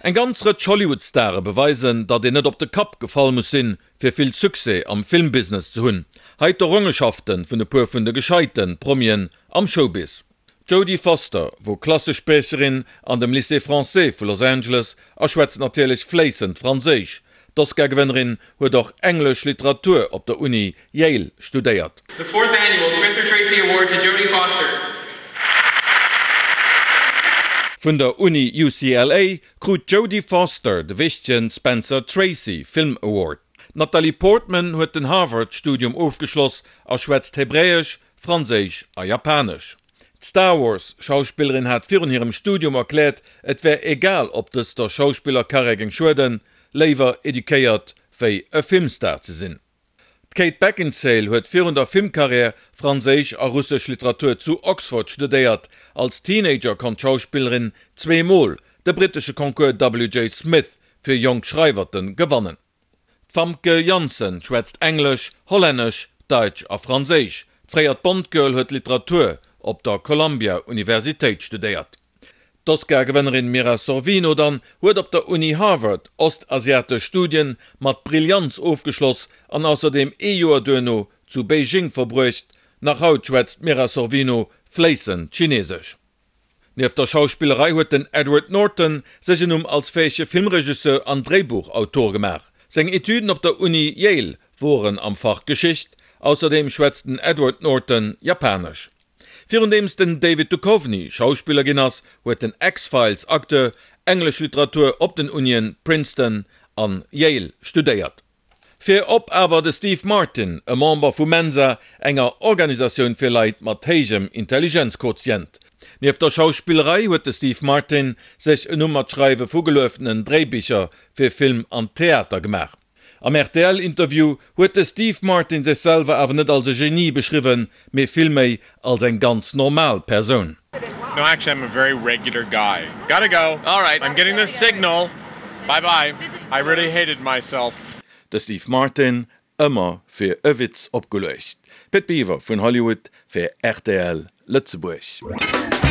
Eng ganz Rëtsch Hollywood-Stare beweisen, datt een net op de Kapp gefall muss sinn, fir vill Succès am Filmbusiness ze hunn. Hei d'Errongenschafte vun e puer vun de gescheite Promien am Showbiz. D'Jodie Foster wor Klassespriecherin an dem Lycée Français vu Los Angeles a schwätzt natierlech fléissend Franséisch. D'Oscar-Gewënnerin huet och englesch Literatur op der Uni Yale studéiert. The fourth annual Spencer Tracy Award to Jodie Foster. Vun der Uni UCLA krut d'Jodie Foster de wichtege Spencer Tracy Film Award. D'Natalie Portman huet den Harvard-Studium ofgeschloss a schwätzt Hebräesch, Franséisch a Japanesch. D'Star Wars Schauspillerin hat virun hirem Studium erkläert, et wär egal ob dëst der Schauspillerkarriär géing schueden, léiwer eduquéiert wéi e Filmstar ze sinn. D'Kate Beckinsale huet virun der Filmkarriär franséisch a russesch Literatur zu Oxford studéiert. Als Teenager konnt d'Schauspillerin zweemol de brittesche Concours WJ Smith fir jonk Schreiwerte gewannen. D'Famke Janssen schwätzt Englesch, Hollännesch, Daitsch a Franséisch. D'fréiert Bond-Girl huet Literatur op der Columbia Universitéit studéiert. D'Oscar-Gewënnerin Mira Sorvino dann huet op der Uni Harvard ostasiatesch Studien mat Brillanz ofgeschloss an ausserdeem ee Joer duerno zu Beijing verbruecht. Nach haut schwätzt d'Mira Sorvino fléissend Chinesesch. Nieft der Schauspillerei huet den Edward Norton sech en Numm als fäege Filmregisseur an Dréibuchautor gemaach. Seng Etüden op der Uni Yale woren am Fach Geschicht. Ausserdeem schwätzt den Edward Norton Japanesch. Virundeems den David Duchovny Schauspiller ginn ass, huet den X-Files-Acteur englesch Literatur op den Unien Princeton an Yale studéiert. Virop awer de Steve Martin, e Member vu Mensa, enger Organisatioun fir Leit mat héijem Intelligenzquotient. Nieft der Schauspillerei huet de Steve Martin sech en Numm mat Schreiwe vu gelueftenen Dréibicher fir Film an Theater gemaach. Am RTL-Interview huet de Steve Martin sech selwer awer net als e Genie beschriwwen, mee villméi als eng ganz normal Persoun. No actually I'm a very regular guy. Gotta go. Alright. I'm getting the signal. Bye bye. I really hated myself. De Steve Martin, ëmmer fir e Witz opgeluecht. Pit Biwer vun Hollywood fir rtl Lëtzebuerg.